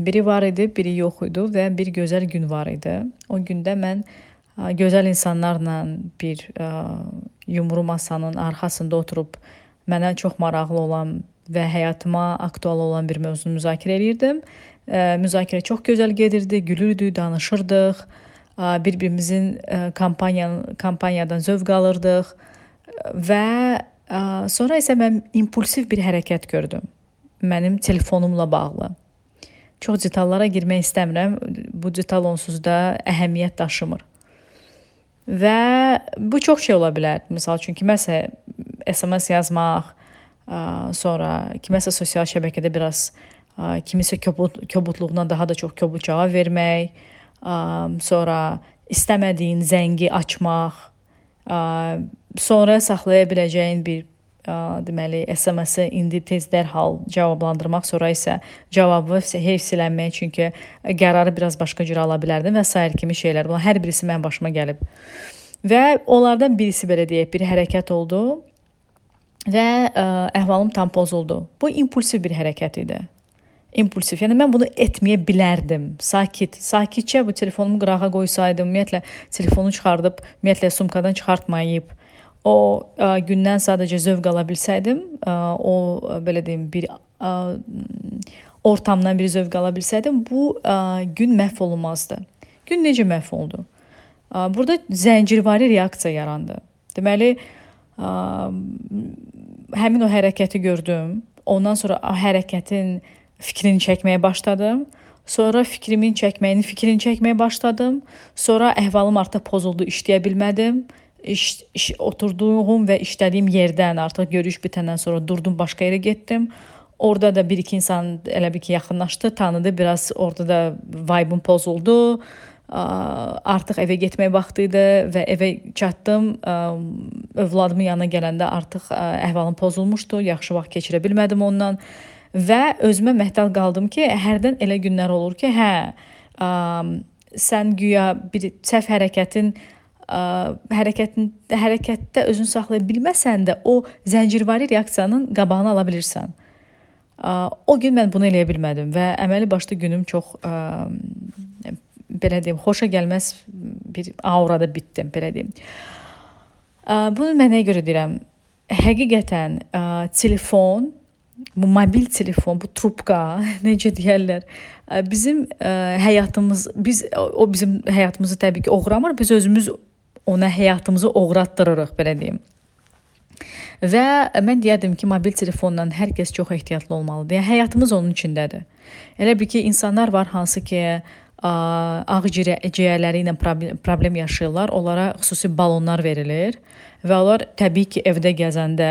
Biri var idi, biri yox idi və bir gözəl gün var idi. O gündə mən gözəl insanlarla bir yumru masanın arxasında oturub mənə çox maraqlı olan və həyatıma aktual olan bir mövzunu müzakirə edirdim. Müzakirə çox gözəl gedirdi, gülürdük, danışırdıq, bir-birimizin kampaniyadan zövq alırdıq və sonra isə mən impulsiv bir hərəkət gördüm mənim telefonumla bağlı. Çox detallara girmək istəmirəm. Bu detal onsuz da əhəmiyyət daşımır. Və bu çox şey ola bilər. Məsəl üçün kiməsə SMS yazmaq, sonra kiməsə sosial şəbəkədə biraz kimisə kobudluğuna daha da çox kobud cavab vermək, sonra istəmədiyin zəngi açmaq, sonra saxlaya biləcəyin bir deməli SMS-i indi tez dərhal cavablandırmaq, sonra isə cavabı heyfsilənmək, çünki qərarı biraz başqa cür ala bilərdim və sair kimi şeylər. Bunlar hər birisi mənim başıma gəlib. Və onlardan birisi belə deyək, bir hərəkət oldu və əhvalım tam pozuldu. Bu impulsiv bir hərəkət idi. İmpulsiv. Yəni mən bunu etməyə bilərdim. Sakitcə bu telefonumu qırağa qoysaydım, ümumiyyətlə telefonu çıxardıb, ümumiyyətlə sumkadan çıxartmayıb, o gündən sadəcə zövq ala bilsəydim, o belə deyim, bir ortamdan bir zövq ala bilsəydim, bu gün məhv olmazdı. Gün necə məhv oldu? Burada zəncirvari reaksiya yarandı. Deməli, həmin o hərəkəti gördüm. Ondan sonra hərəkətin fikrini çəkməyə başladım. Sonra fikrini çəkməyə başladım. Sonra əhvalım artıq pozuldu, işləyə bilmədim. Oturduğum və işlədiyim yerdən artıq görüş bitəndən sonra durdum, başqa yerə getdim. Orada da bir-iki insan elə bir ki yaxınlaşdı, tanıdı, biraz orada da vibe'ım pozuldu. Artıq evə getmək vaxtı idi və evə çatdım. Övladımın yanına gələndə artıq əhvalım pozulmuşdu, yaxşı vaxt keçirə bilmədim ondan və özümə məhdəl qaldım ki, hərdən elə günlər olur ki, sən güya bir səhv hərəkətdə özünü saxlaya bilməsən də o zəncirvari reaksiyanın qabağını ala bilirsən. O gün mən bunu eləyə bilmədim və əməli başlı günüm çox belə deyim, xoşa gəlməz bir aurada bitdim, belə deyim. Bunu mən nəyə görə deyirəm? Həqiqətən telefon, bu mobil telefon, bu trubka, necə deyərlər, bizim bizim həyatımızı təbii ki oğramır, biz özümüz ona həyatımızı oğratdırırıq, belə deyim. Və mən deyərdim ki, mobil telefonla hər kəs çox ehtiyatlı olmalıdır. Yəni, həyatımız onun içindədir. Elə bir ki, insanlar var hansı ki, ağciyərləri ilə problem yaşayırlar. Onlara xüsusi balonlar verilir və onlar təbii ki, evdə gəzəndə,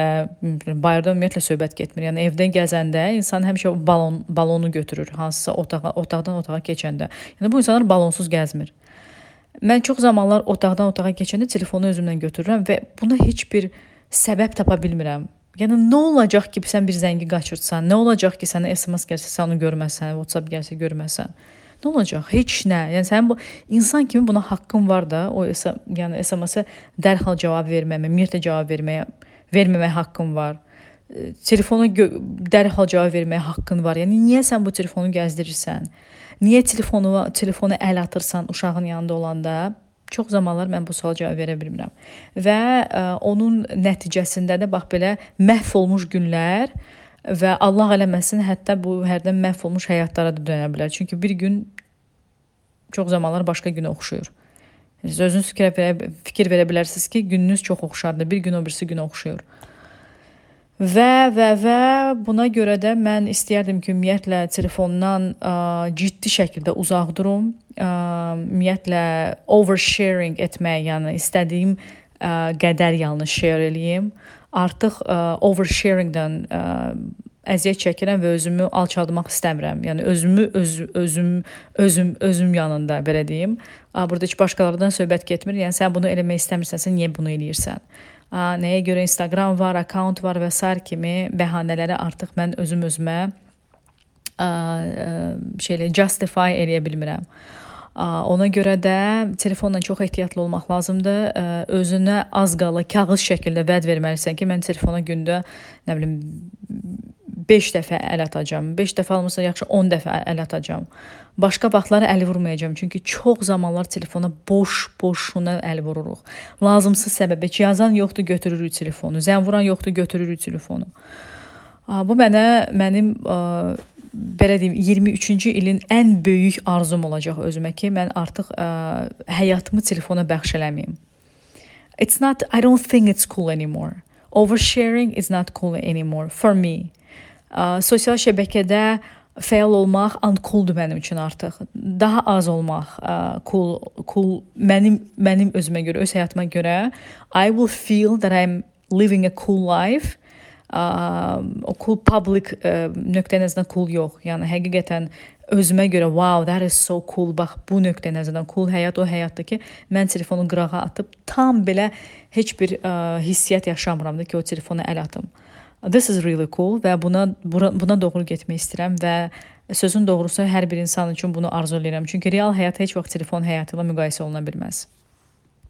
bayırda ümumiyyətlə söhbət getmir. Yəni, evdə gəzəndə insan həmişə balonu götürür, hansısa otaqdan otağa keçəndə. Yəni, bu insanlar balonsuz gəzmir. Mən çox zamanlar otaqdan otağa keçəndə telefonu özümlə götürürəm və buna heç bir səbəb tapa bilmirəm. Yəni, nə olacaq ki, sən bir zəngi qaçırtsan, nə olacaq ki, sənə SMS gəlsə, sən onu görməsən, WhatsApp gəlsə görməsən. Nə olacaq? Heç nə. Yəni, sənin bu insan kimi buna haqqın var da, o yəni SMS-ə dərhal cavab verməyə, ümumiyyətlə cavab verməməyə haqqın var. Telefona dərhal cavab verməyə haqqın var. Yəni, niyə sən bu telefonu gəzdirirsən? Niyə telefonu əl atırsan uşağın yanında olanda? Çox zamanlar mən bu suala cavab verə bilmirəm. Və onun nəticəsində də bax belə məhv olmuş günlər və Allah eləməsin, hətta bu hərdən məhv olmuş həyatlara da dönə bilər. Çünki bir gün çox zamanlar başqa günə oxşuyur. Siz özünüz fikir verə bilərsiniz ki, gününüz çox oxşardır, bir gün o birisi günə oxşuyur. Və buna görə də mən istəyərdim ki, ümumiyyətlə telefondan ciddi şəkildə uzaq durum. Ümumiyyətlə oversharing etmək, yəni istədiyim qədər yalnız share eləyim. Artıq oversharingdən əziyyət çəkirəm və özümü alçaldmaq istəmirəm. Yəni özüm yanında belə deyim. Burada heç başqalarından söhbət getmir. Yəni sən bunu eləmək istəmirsənsə, niyə bunu eləyirsən? Nəyə görə Instagram var, account var və sair kimi bəhanələri artıq mən özümə justify eləyə bilmirəm. Ona görə də telefonla çox ehtiyatlı olmaq lazımdır. Özünə az qala kağız şəkildə vəd verməlisən ki, mən telefona gündə, nə bilim, 5 dəfə əl atacağam. 5 dəfə almırsa yaxşı 10 dəfə əl atacağam. Başqa vaxtlara əl vurmayacağam. Çünki çox zamanlar telefona boşuna əl vururuq. Lazımsız səbəbə ki, yazan yoxdur, götürürük telefonu. Zəng vuran yoxdur, götürürük telefonu. Bu mənim belə deyim 23-cü ilin ən böyük arzum olacaq özümə ki, mən artıq həyatımı telefona bəxş eləməyim. I don't think it's cool anymore. Oversharing is not cool anymore for me. Sosial şəbəkədə fəal olmaq uncooldur mənim üçün artıq. Daha az olmaq cool mənim özümə görə, öz həyatıma görə. I will feel that I'm living a cool life. O cool public nöqtə nəzərdən cool yox. Yəni həqiqətən özümə görə wow, that is so cool. Bax bu nöqtə nəzərdən cool həyat o həyatdır ki, mən telefonu qırağa atıb tam belə heç bir hissiyyat yaşamıram da ki, o telefona əl atım. This is really cool və buna doğru getmək istəyirəm və sözün doğrusu hər bir insan üçün bunu arzu edirəm. Çünki real həyat heç vaxt telefon həyatı ilə müqayisə oluna bilməz.